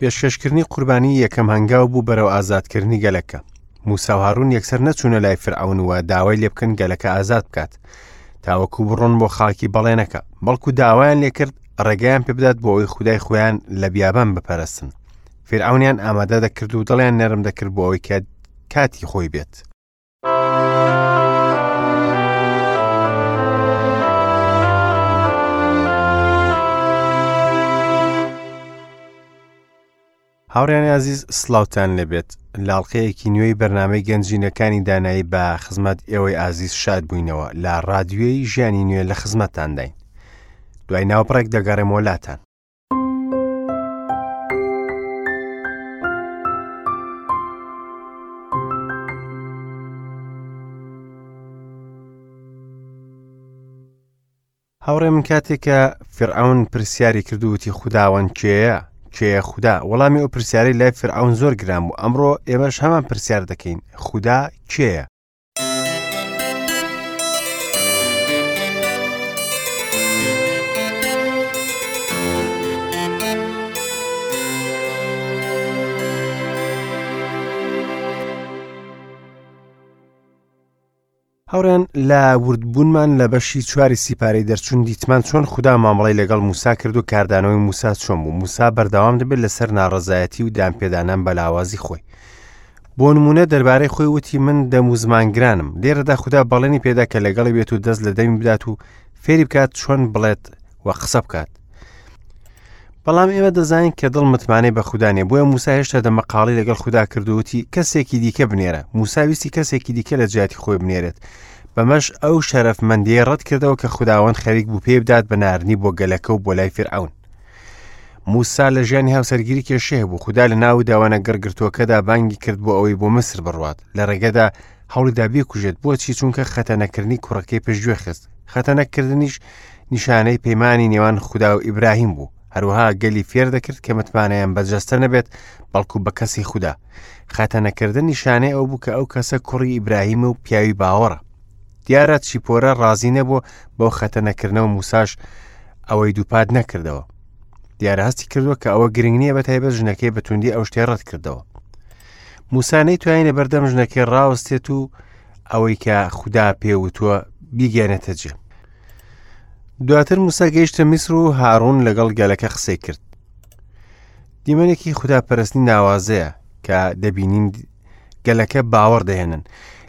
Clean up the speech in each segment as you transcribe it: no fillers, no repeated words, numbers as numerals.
پێشکەشکردنی قوربانی یەکەم هەنگاو بوو بەرەو ئازادکردنی گەلەکە. موسا و هارون یەکسەر نەچوونە لای فرعون و داوای لێ بکەن گەلەکە ئازاد بکات تاوەکو بڕۆن بۆ خاکی بەڵێنەکە، بەڵکو داوایان لێکرد ڕێگەیان پێبدات بۆ ئەوەی خودای خۆیان لە بیابان بپەرستن. فیرعەونیان ئامادە دەکرد و دڵیان نەرم دەکرد بۆ ئەوەی کە کاتی خۆی بێت. هاوڕیانی ئازیز سلااوان لەبێت لاڵقەیەکی نوێی بەرنمەی گەنجینەکانی دانایی بە خزمەت ئێوەی ئازیز شاد بووینەوە لە رادیۆی ژیانی نوێ لە خزمەتتانداین دوای ناوبڕێک دەگەڕێمەوە لاتان. هاوڕێ من کاتێک کە فرعون پرسیاری کرد و وتی خوداوەند کێیە کێیە خودا وەڵامی ئەو پرسیارەی لای فرعون زۆر گران بوو ئەمڕۆ ئێمەش هەمان پرسیار دەکەین خودا کێیە هاوڕێیان لە وردبوونمان لە بەشی چواری سیپارەی دەرچوون دیتمان چۆن خودا مامەڵەی لەگەڵ موسا کرد و کاردانەوەی موسا چۆن بوو موسا بەردەوام دەبێت لەسەر ناڕەزایەتی و دانپێدانان بە لاوازی خۆی بۆ نمونە دەربارەی خۆی وتی من دەم و زمانگرانم لێرەدا خودا بەڵێنی پێدا کە لەگەڵی بێت و دەست لە دەمی بدات و فێری بکات چۆن بڵێت و قسە بکات بەڵام ئێمە دەزانین کە دڵ متمانەی بە خودا نیە بۆیە موسا هێشتا دەمەقاڵی لەگەڵ خودا کرد و وتی کەسێکی دیکە بنێرە موسا ویستی کەسێکی دیکە لە جیاتی خۆی بنێرێت بەمەش ئەو شەرەفمەندیەی ڕەت کردەوە کە خوداوەند خەریک بوو پێی بدات بە ناردنی بۆ گەلەکە و بۆ لای فیرعەون موسا لە ژیانی هاوسەرگیری کێشەی هەبوو خودا لە ناو داوانە گڕگرتووەکەدا بانگی کرد بۆ ئەوەی بۆ میسر بڕوات لە ڕێگەدا هەوڵیدا بیکوژێت بۆچی چونکە خەتەنەکردنی کوڕەکەی پشتگوێ خست خەتەنەکردنیش نیشانەی پەیمانی نێوان خودا و ئیبراهیم بوو هەروەها گەلی فێر دەکرد کە متمانەیان بە جەستە نەبێت بەڵکو بە کەسی خودا خەتەنەکردن نیشانەی ئەو بوو کە ئەو کەسە کوڕی ئیبراهیم و پیاوی باوەڕە دیارە چیپۆرە ڕازی نەبوو بەو خەتەنەکردنەوە موساش ئەوەی دووپات نەکردەوە دیارە هەستی کردووە کە ئەوە گرنگ نییە بە تایبەت ژنەکەی بەتوندی ئەو شتەی ڕەت کردەوە موسا نەیتوانی لە بەردەم ژنەکەی ڕاوەستێت و ئەوەی کە خودا پێوتووە بیگەێنێتە جێ دواتر موسا گەیشتە میسر و هاڕون لەگەڵ گەلەکە قسەی کرد دیمەنێکی خودا پەرستنی ناوازەیە کە دەبینین گەلەکە باوەڕ دەهێنن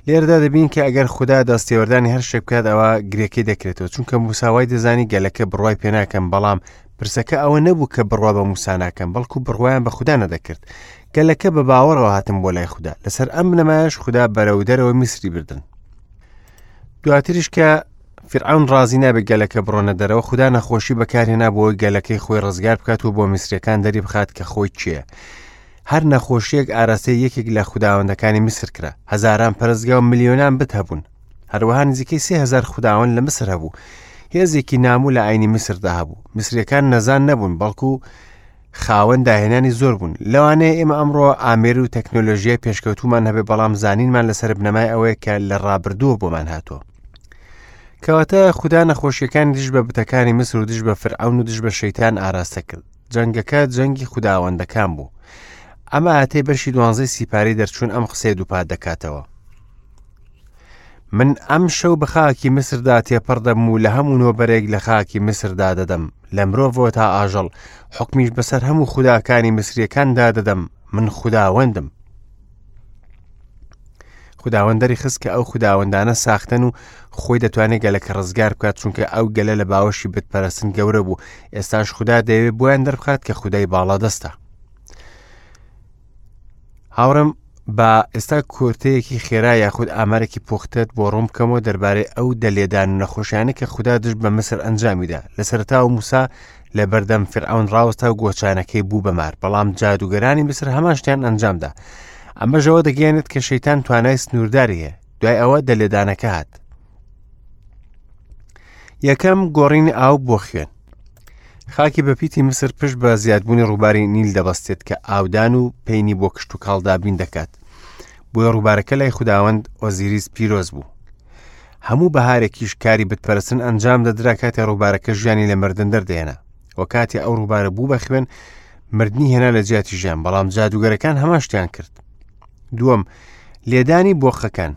لێرەدا دەبین کە ئەگەر خودا دەستێوەردانی هەر شتێک بکات ئەوە گرێکەی دەکرێتەوە چونکە موسا وای دەزانی گەلەکە بڕوای پێناکەم بەڵام پرسەکە ئەوە نەبوو کە بڕوا بە موسا ناکەم بەڵکو بڕوایان بە خودا نەدەکرد گەلەکە بە باوەڕەوە هاتن بۆ لای خودا لەسەر ئەم بنەمایەش خودا بەرەو دەرەوە میسری بردن دواتریش کە فرعون ڕازی نابێت گەلەکە بڕۆنە دەرەوە خودا نەخۆشی بەکارهێنا بۆ گەلەکەی خۆی ڕزگار بکات و بۆ میسرەکان دەری بخات کە خۆی کێیە هەر نەخۆشییەک ئاراستەی یەکێک لە خوداوەندەکانی میسر کرا. هەزاران پەرستگا و ملیۆنان بت هەبوون. هەروەها نزیکەی 3000 خوداوەند لە میسر هەبوو. هێزێکی نامو لە ئاینی میسردا هەبوو. میسریەکان نەزان نەبوون، بەڵکو خاوەن داهێنانی زۆر بوون. لەوانەیە ئێمە ئەمڕۆ ئامێر و تەکنۆلۆژیای پێشکەوتوومان هەبێ، بەڵام زانینمان لەسەر بنەمای ئەوەیە کە لە ڕابردووە بۆمان هاتووە. کەواتە خودا نەخۆشیەکانی دژ بە بتەکانی میسر و دژ بە فرعون و دژ بە شەیتان ئاراستە کرد. جەنگەکە جەنگی خوداوەندەکان بوو. ئەم ئایەتەی بەشی دوانزەی سیپارەی دەرچوون ئەم قسەیە دووپات دەکاتەوە. من ئەم شەو بە خاکی میسردا تێپەڕ دەبم و لە هەموو نۆبەرێک لە خاکی میسردا دەدەم لە مرۆڤەوە تا ئاژەڵ حکمیش بەسەر هەموو خوداکانی میسریەکاندا دەدەم من خوداوەندم خوداوەند دەری خست کە ئەو خوداوەندانە ساختەن و خۆی دەتوانێت گەلەکە ڕزگار بکات چونکە ئەو گەلە لە باوەشی بتپەرستن گەورە بوو ئێستاش خودا دەیەوێت بۆیان دەربخات کە خودای باڵادەستە هاوڕم با ئێستا کورتەیەکی خێرا یاخود ئامارێکی پوختت بۆ ڕوون بکەمەوە دەربارەی ئەو دەلێدان و نەخۆشیانە کە خودا دژ بە مسر ئەنجامیدا لە سەرتا و موسا لە بەردەم فرعون ڕاوەستا و گۆچانەکەی بوو بە مار بەڵام جادوگەرانی میسر هەمان شتیان ئەنجامدا ئەمەش ئەوە دەگەیەنێت کە شەیتان توانای سنوورداری هەیە دوای ئەوە دەلێدانەکە هات یەکەم گۆڕینی ئاو بۆ خوێن خاکی بەپیتی میسر پشت بە زیادبوونی ڕووباری نیل دەبەستێت کە ئاودان و پەینی بۆ کشتوکاڵ دابین دەکات بۆیە ڕووبارەکە لای خوداوەند ئۆزیریس پیرۆز بوو هەموو بەهارێکیش کاری بتپەرستن ئەنجام دەدرا کاتێ ڕووبارەکە ژیانی لە مردن دەردێنا و کاتێ ئەو ڕووبارە بوو بە خوێن مردنی هێنا لە جیاتی ژیان، بەڵام جادوگەرەکان هەمان شتیان کرد. دووەم، لێدانی بۆقەکان.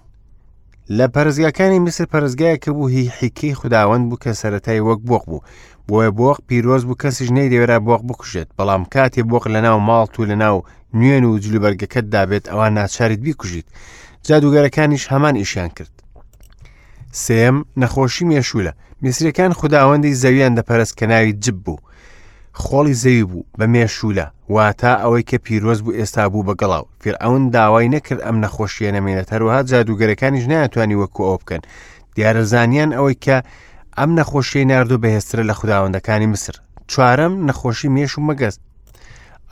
لە پەرستگاکانی میسر پەرستگایەک بوو هی حیکەی خوداوەند بوو کە سەرەتای وەک بۆق بوو بۆیە بۆق پیرۆز بوو کەسیش نەیدەوێرا بۆق بکوژێت بەڵام کاتێ بۆق لەناو ماڵت و لەناو نوێن و جلوبەرگەکەتدا بێت ئەوە ناچاریت بیکوژیت جادوگەرەکانیش هەمان ئیشیان کرد سێم نەخۆشی مێشولە میسرەکان خوداوەندی زەویان دەپەرست کە ناوی جب بوو خۆڵی زەوی بوو بە مێشولە واتە ئەوەی کە پیرۆز بوو ئێستا بوو بە گەڵاو فیرعەون داوای نەکرد ئەم نەخۆشیە نەمێنێت هەروەها جادوگەرەکانیش نەیانتوانی وەکو ئەو بکەن دیارە زانیان ئەوەی کە ئەم نەخۆشیەی ناردوو بەهێزترە لە خوداوەندەکانی میسر چوارەم نەخۆشی مێش و مەگەز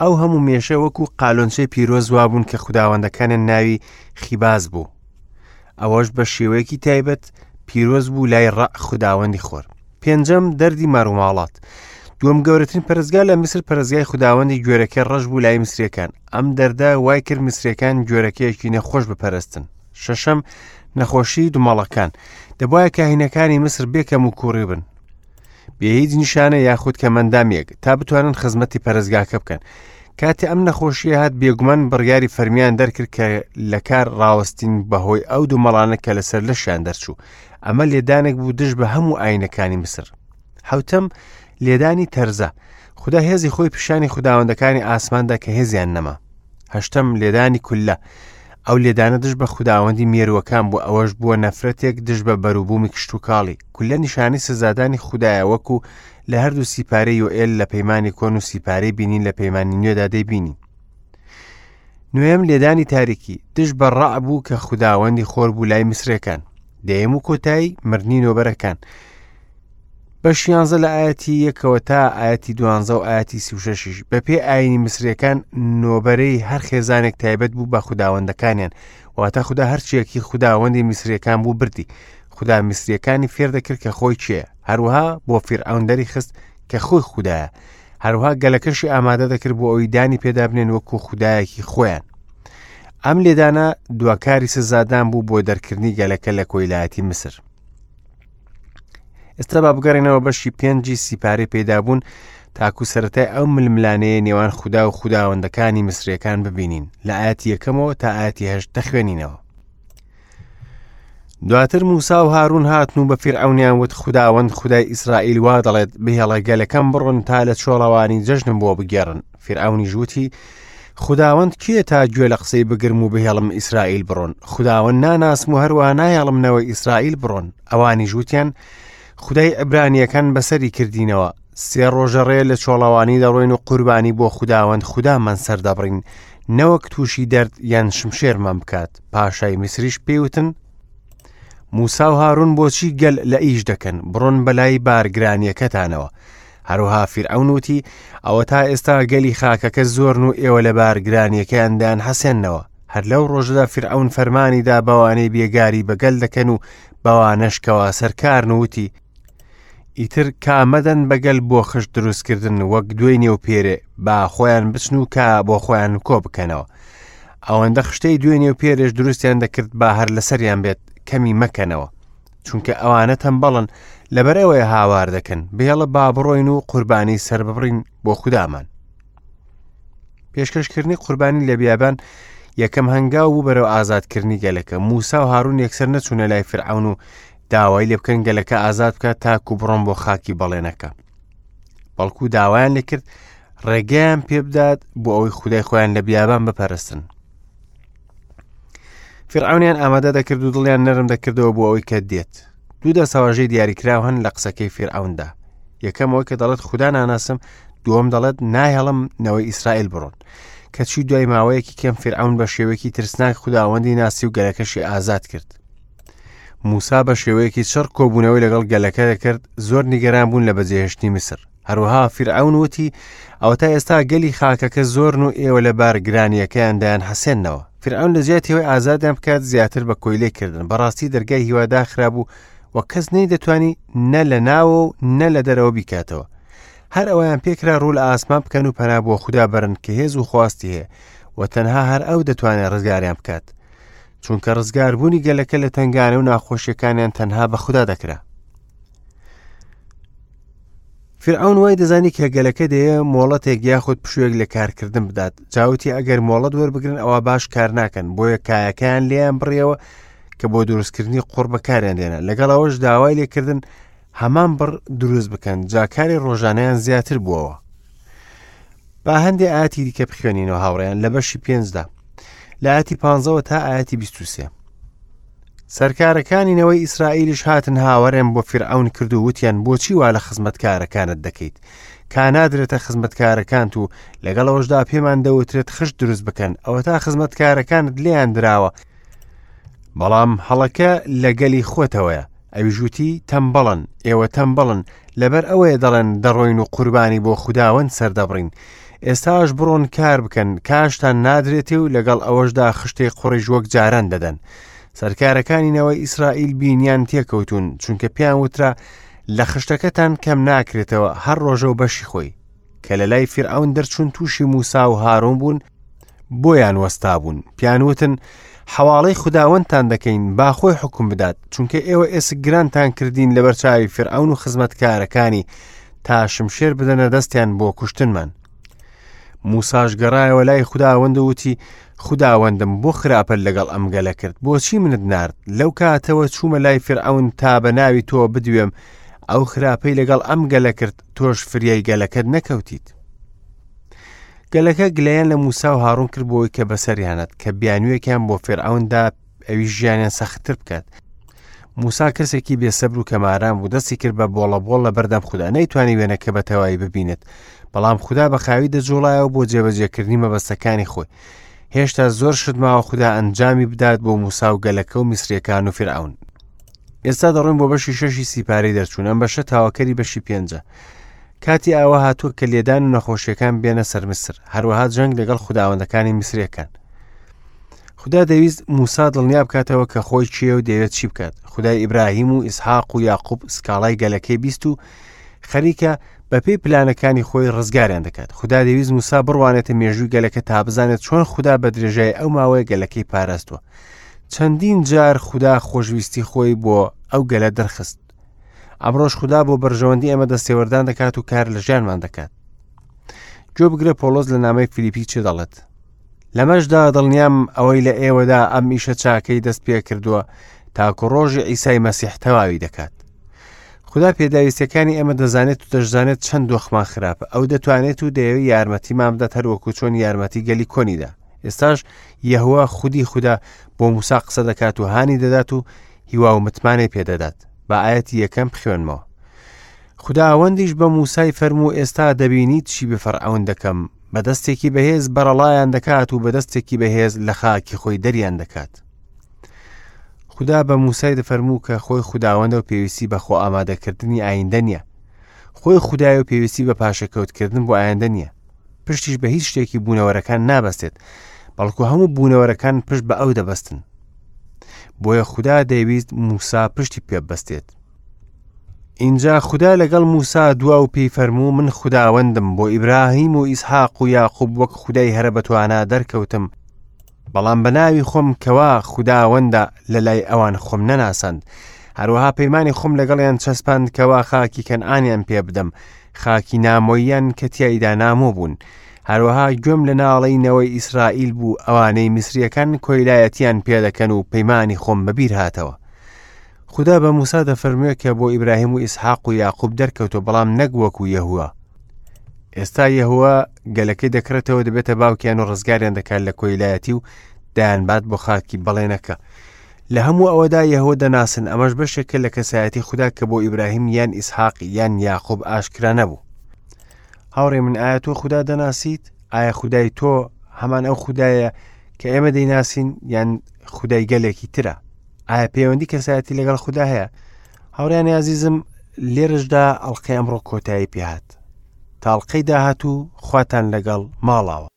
ئەو هەموو مێشە وەکو قالۆنچەی پیرۆز وابوون کە خوداوەندەکانیان ناوی خیباز بوو ئەوەش بە شێوەیەکی تایبەت پیرۆز بوو لای ڕە خوداوەندی خۆر پێنجەم دەردی مەڕوماڵات دووەم گەورەترین پەرستگا لە میسر پەرستگای خوداوەندی گوێرەکەی ڕەش بوو لای میسریەکان ئەم دەردە وای کرد میسریەکان گوێرەکەیەکی نەخۆش بپەرستن شەشەم نەخۆشی دومەڵەکان دەبواە کاهینەکانی میسر بێکەم و کوڕی بن بێ هیچ نیشانە یاخود کەمەندامێک تا بتوانن خزمەتی پەرستگاکە بکەن کاتێ ئەم نەخۆشیە هات بێگومان بڕیاری فەرمیان دەرکرد کە لە کار ڕاوەستین بەهۆی ئەو دومەڵانە کە لەسەر لەشیان دەرچوو ئەمە لێدانێک بوو دژ بە هەموو ئاینەکانی میسر حوتەم لێدانی تەرزە خودا هێزی خۆی پیشانی خوداوەندەکانی ئاسماندا کە هێزیان نەما هەشتەم لێدانی کوللە ئەو لێدانە دژ بە خوداوەندی مێروەکان بوو ئەوەش بووە نەفرەتێک دژ بە بەروبوومی کشتوکاڵی کوللە نیشانی سزادانی خودایە وەکو لە هەردوو سیپارەی یۆئێل لە پەیمانی کۆن و سیپارەی بینین لە پەیمانی نوێدا دەیبینین نوێم لێدانی تاریکی دژ بە ڕع بوو کە خوداوەندی خۆر بوو لای میسرەکان دەیەم و کۆتایی مردنی نۆبەرەکان بەش یانزە لە ئاەتی یەکەوە تا ئاەتی دوانزە و ئاەتی سیوشەشیش بەپێ ئاینی میسرەکان نۆبەرەی هەر خێزانێک تایبەت بوو بە خوداوەندەکانیان واتە خودا هەرچیەکی خوداوەندی میسرەکان بوو بردی خودا میسریەکانی فێر دەکرد کە خۆی کێ هەروەها بۆ فیرعەون دەری خست کە خۆی خودایە هەروها گەلەکەشی ئامادە دەکرد بۆ ئەوی دانی پێدا بنێن وەکو خودایەکی خۆیان ئەم لێدانە دواکاری سزادان بوو بۆ دەرکردنی گەلەکە لە کۆیلایەتی میسر ئێستا با بگەڕێنەوە بەشی پێنجی سیپارەی پەیدابوون تاکو سەتای ئەو ململانەیە نێوان خودا و خوداوەندەکانی میسرەکان ببینین لە ئاەتی یەکەمەوە تا ئاەتی هەشت دەخوێنینەوە دواتر موسا و هارون هاتن و بە فیرعەونیان وت خوداوەند خودای ئیسرائیل وا دەڵێت بهێڵە گەلەکەم بڕۆن تا لە چۆڵەوانی جەژنم بۆ بگێڕن فیرعەونیش وتی خوداوەند کێ تا گوێ لە قسەی بگرم و بهێڵم ئیسرائیل بڕۆن خوداوەند ناناسم و هەروەها نایەڵم نەوەی ئیسرائیل بڕۆن ئەوانیش وتیان خودای عیبرانیەکان بەسەری کردینەوە سێ ڕۆژە ڕێ لە چۆڵەوانی دەڕۆین و قوربانی بۆ خوداوەند خودامان سەردەبڕین نەوەک تووشی دەرد یان شمشێرمان بکات پاشای میسریش پێیوتن موسا و هارون بۆچی گەل لە ئیش دەکەن بڕۆن بەلای بارگرانیەکەتانەوە هەروها فیرعەون وتی ئەوە تا ئێستا گەلی خاکەکە زۆرن و ئێوە لە بارگرانیەکەیان دایان حەسێنەوە هەر لەو ڕۆژەدا فیرعەون فەرمانی دا بەوانەی بێگاری بە گەل دەکەن و بەوانەش کەوا سەرکارن و وتی ئیتر کا مەدەن بە گەل بۆ خشت دروستکردن وەک دوێنێ و پێرێ با خۆیان بچن و کا بۆ خۆیان کۆ بکەنەوە ئەوەندە خشتەی دوێنێ و پێرێش دروستیان دەکرد با هەر لەسەریان بێت کەمی مەکەنەوە چونکە ئەوانە تەمبەڵن لەبەر ئەوەیە هاوار دەکەن بهێڵە با بڕۆین و قوربانی سەرببڕین بۆ خودامان پێشکەشکردنی قوربانی لە بیابان یەکەم هەنگاو بوو بەرەو ئازادکردنی گەلەکە موسا و هارون یەکسەر نەچوونە لای فرعون و داوای لێ بکەن گەلەکە ئازاد بکات تاکو بڕۆن بۆ خاکی بەڵێنەکە بەڵکو داوایان لێکرد ڕێگەیان پێبدات بۆ ئەوەی خودای خۆیان لە بیابان بپەرستن فرعونیان ئامادە دەکرد و دڵیان نەرم دەکردەوە بۆ ئەوەی کە دێت دوو دەستەواژەی دیاریکراو هەن لە قسەکەی فیرعەوندا یەکەم ئەوەی کە دەڵێت خودا ناناسم دووەم دەڵێت ناهێڵم نەوەی ئیسرائیل بڕۆن کەچی دوای ماوەیەکی کەم فیرعەون بە شێوەیەکی ترسناک خوداوەندی ناسی و گەلەکەشی ئازاد کرد موسا بە شێوەیەکی چڕ کۆبوونەوەی لەگەڵ گەلەکە دەکرد زۆر نیگەران بوون لە بەجێهێشتنی میسر هەروەها فیرعەون وتی ئەوەتا ئێستا گەلی خاکەکە زۆرن و ئێوە لە بارگرانیەکەیان دایان حەسێنەوە فیرعەون لە جیاتی ئەوەی ئازادیان بکات زیاتر بە کۆیلەی کردن بەڕاستی دەرگای هیوا داخرابوو و کەس نەیدەتوانی نە لە ناوە و نە لە دەرەوە بیکاتەوە هەر ئەویان پێکرا ڕوو لە ئاسمان بکەن و پەنا بۆ خودا بەرن کە هێز و خواستی هەیە و تەنها هەر ئەو دەتوانێت ڕزگاریان بکات چونکە ڕزگاربوونی گەلەکە لە تنگانە و ناخۆشیەکانیان تەنها بە خودا دەکرا. فیرعەون وای دەزانی کە گەلەکە دەیەوێ مۆڵەتێک یاخود پشوویەک لە کارکردن بدات، جا وتی ئەگەر مۆڵەت وەربگرن ئەوا باش کار ناکەن، بۆیە کایەکەیان لێیان بڕیەوە کە بۆ دروستکردنی قوڕ بەکاریان دێنا، لەگەڵ ئەوەش داوای لێکردن هەمان بڕ دروست بکەن، جا کاری ڕۆژانەیان زیاتر بووەوە. با هەندێ ئاەتی دیکە بخوێنینەوە هاوڕێیان لە بەشی پێنجدا لە ئاەتی پانزەوە تا ئاەتی 23. سەرکارەکانی نەوەی ئیسرائیلیش هاتن هاوارێن بۆ فیرعەون کرد و وتیان بۆچی وا لە خزمەتکارەکانت دەکەیت کا نادرێتە خزمەتکارەکانت و لەگەڵ ئەوەشدا پێمان دەوترێت خشت دروست بکەن ئەوەتا خزمەتکارەکانت لێیان دراوە بەڵام هەڵەکە لە گەلی خۆتەوەیە ئەویش وتی تەمبەڵن ئێوە تەمبەڵن لەبەر ئەوەیە دەڵێن دەڕۆین و قوربانی بۆ خوداوەند سەردەبڕین ئێستاش بڕۆن کار بکەن کاشتان نادرێتێ و لەگەڵ ئەوەشدا خشتەی قوڕیش وەک جاران دەدەن سەرکارەکانی نەوەی ئیسرائیل بینیان تێکەوتون چونکە پێیان وترا لە خشتەکەتان کەم ناکرێتەوە هەر ڕۆژە و بەشی خۆی کە لە لای فیرعەون دەرچوون تووشی موسا و هارون بوون بۆیان وەستابوون پیان وتن حەواڵەی خوداوەندتان دەکەین با خۆی حکم بدات چونکە ئێوە ئێسک گرانتان کردین لەبەر چاوی فرعون و خزمەتکارەکانی تا شمشێر بدەنە دەستیان بۆ کوشتنمان موساش گەڕایەوە لای خوداوەند و وتی خوداوەندم بۆ خراپە لەگەڵ ئەم گەلە کرد بۆچی منت نارد لەو کاتەوە چوومە لای فرعون تا بە ناوی تۆ بدوێم ئەو خراپەی لەگەڵ ئەم گەلە کرد تۆش فریای گەلەکەت نەکەوتیت گەلەکە گلەیان لە موسا و هاڕون کرد بۆی کە بەسەریانات کە بیانوویەکیان بۆ فێرعوندا ئەوی ژیانیان سەختتر بکات موسا کەسێکی بێسەبر و کەماران بوو دەستی کرد بە بۆڵە بۆڵ لە بەردەم خودا نەیتوانی وێنەکە بە تەواوی ببینێت بەڵام خودا بە خاوی دەجوڵایەوە بۆ جێبەجێکردنی مەبەستەکانی خۆی هێشتا زۆر شت ماوە خودا ئەنجامی بدات بۆ موسا و گەلەکە و میسریەکان و فرعون ئێستا دەڕۆین بۆ بەشی شەشی سیپارەی دەرچوون ئەم بەشە تاواکەری بەشی پێنجە کاتی ئاوا هاتووە کە لێدان و نەخۆشیەکان بێنە سەر میسر هەروەها جەنگ لەگەڵ خوداوەندەکانی میسرەکان خودا دەویست موسا دڵنیا بکاتەوە کە خۆی کێیە و دەیەوێت چی بکات خدای ئیبراهیم و ئیسحاق و یاقوب سکاڵای گەلەکەی بیست و خەریکە بەپێی پلانەکانی خۆی ڕزگاریان دەکات خودا دەویست موسا بڕوانێتە مێژووی گەلەکە تا بزانێت چۆن خودا بە درێژای ئەو ماوەیە گەلەکەی پاراستوە چەندین جار خودا خۆشویستی خۆی بۆ ئەو گەلە دەرخست ئەمڕۆش خودا بۆ بەرژەوەندی ئێمە دەستێوەردان دەکات و کار لە ژیانمان دەکات گوێ بگرە پۆڵۆس لە نامەی فیلیپی چێ دەڵێت لەمەشدا دڵنیام ئەوەی لە ئێوەدا ئەم ئیشە چاکەی دەست پێ کردووە تاکو ڕۆژی ئیسای مەسیح تەواوی دەکات خودا پێداویستەکانی ئێمە دەزانێت و دەشزانێت چەند دۆخمان خراپە ئەو دەتوانێت و دەیەوێت یارمەتیمان بدات هەروەکو چۆن یارمەتی گەلی کۆنیدا ئێستاش یەهوە خودی خودا بۆ موسا قسە دەکات و هانی دەدات و هیوا و متمانەی پێدەدات با ئاەتی یەکەم بخوێنمەوە خوداوەندیش بە موسای فەرموو ئێستا دەبینیت چی بە فەرعەون دەکەم بە دەستێکی بەهێز بەرەڵایان دەکات و بە دەستێکی بەهێز لە خاکی خۆی دەریان دەکات خودا بە موسای دەفەرموو کە خۆی خوداوەندە و پێویستی بە خۆ ئامادەکردنی ئایندە نییە خۆی خودای و پێویستی بە پاشەکەوتکردن بۆ ئایندە نییە پشتیش بە هیچ شتێکی بوونەوەرەکان نابەستێت بەڵکو هەموو بوونەوەرەکان پشت بە ئەو دەبەستن بۆیە خودا دەیویست موسا پشتی پێبەستێت ئینجا خودا لەگەڵ موسا دوا و پێی فەرموو من خوداوەندم بۆ ئیبراهیم و ئیسحاق و یاقوب وەک خودای هەرە بەتوانا دەرکەوتم بەڵام بە ناوی خۆم کەوا خوداوەندە لە لای ئەوان خۆم نەناساند هەروەها پەیمانی خۆم لەگەڵیان چەسپاند کەوا خاکی کەنعانیان پێ بدەم خاکی نامۆییان کە تیایدا نامۆ بوون هەروەها گوێم لە ناڵەی نەوەی ئیسرائیل بوو ئەوانەی میسریەکان کۆیلایەتیان پێدەکەن و پەیمانی خۆم بەبیر هاتەوە خودا بە موسا دەفەرموێ کە بۆ ئیبراهیم و ئیسحاق و یاقوب دەرکەوتووە بەڵام نەک وەکو یەهوە ئێستا یەهوە گەلەکەی دەکڕێتەوە دەبێتە باوکیان و ڕزگاریان دەکات لە کۆیلایەتی و دەیانبات بۆ خاکی بەڵێنەکە لە هەموو ئەوەدا یەهوە دەناسن ئەمەش بەشێکە لە کەسایەتی خودا کە بۆ ئیبراهیم یان ئیسحاق یان یاقوب ئاشکرا نەبوو هاوڕێ من ئایا تۆ خودا دەناسیت ئایا خودای تۆ هەمان ئەو خودایە کە ئێمە دەیناسین یان خودای گەلێکی ترە ئایا پەیوەندی کەسایەتی لەگەڵ خودا هەیە هاوڕیانی ئازیزم لێرەشدا ئەڵلقەی ئەمڕۆ کۆتایی پێهات تاڵقەی داهاتوو خواتان لەگەڵ ماڵاوە.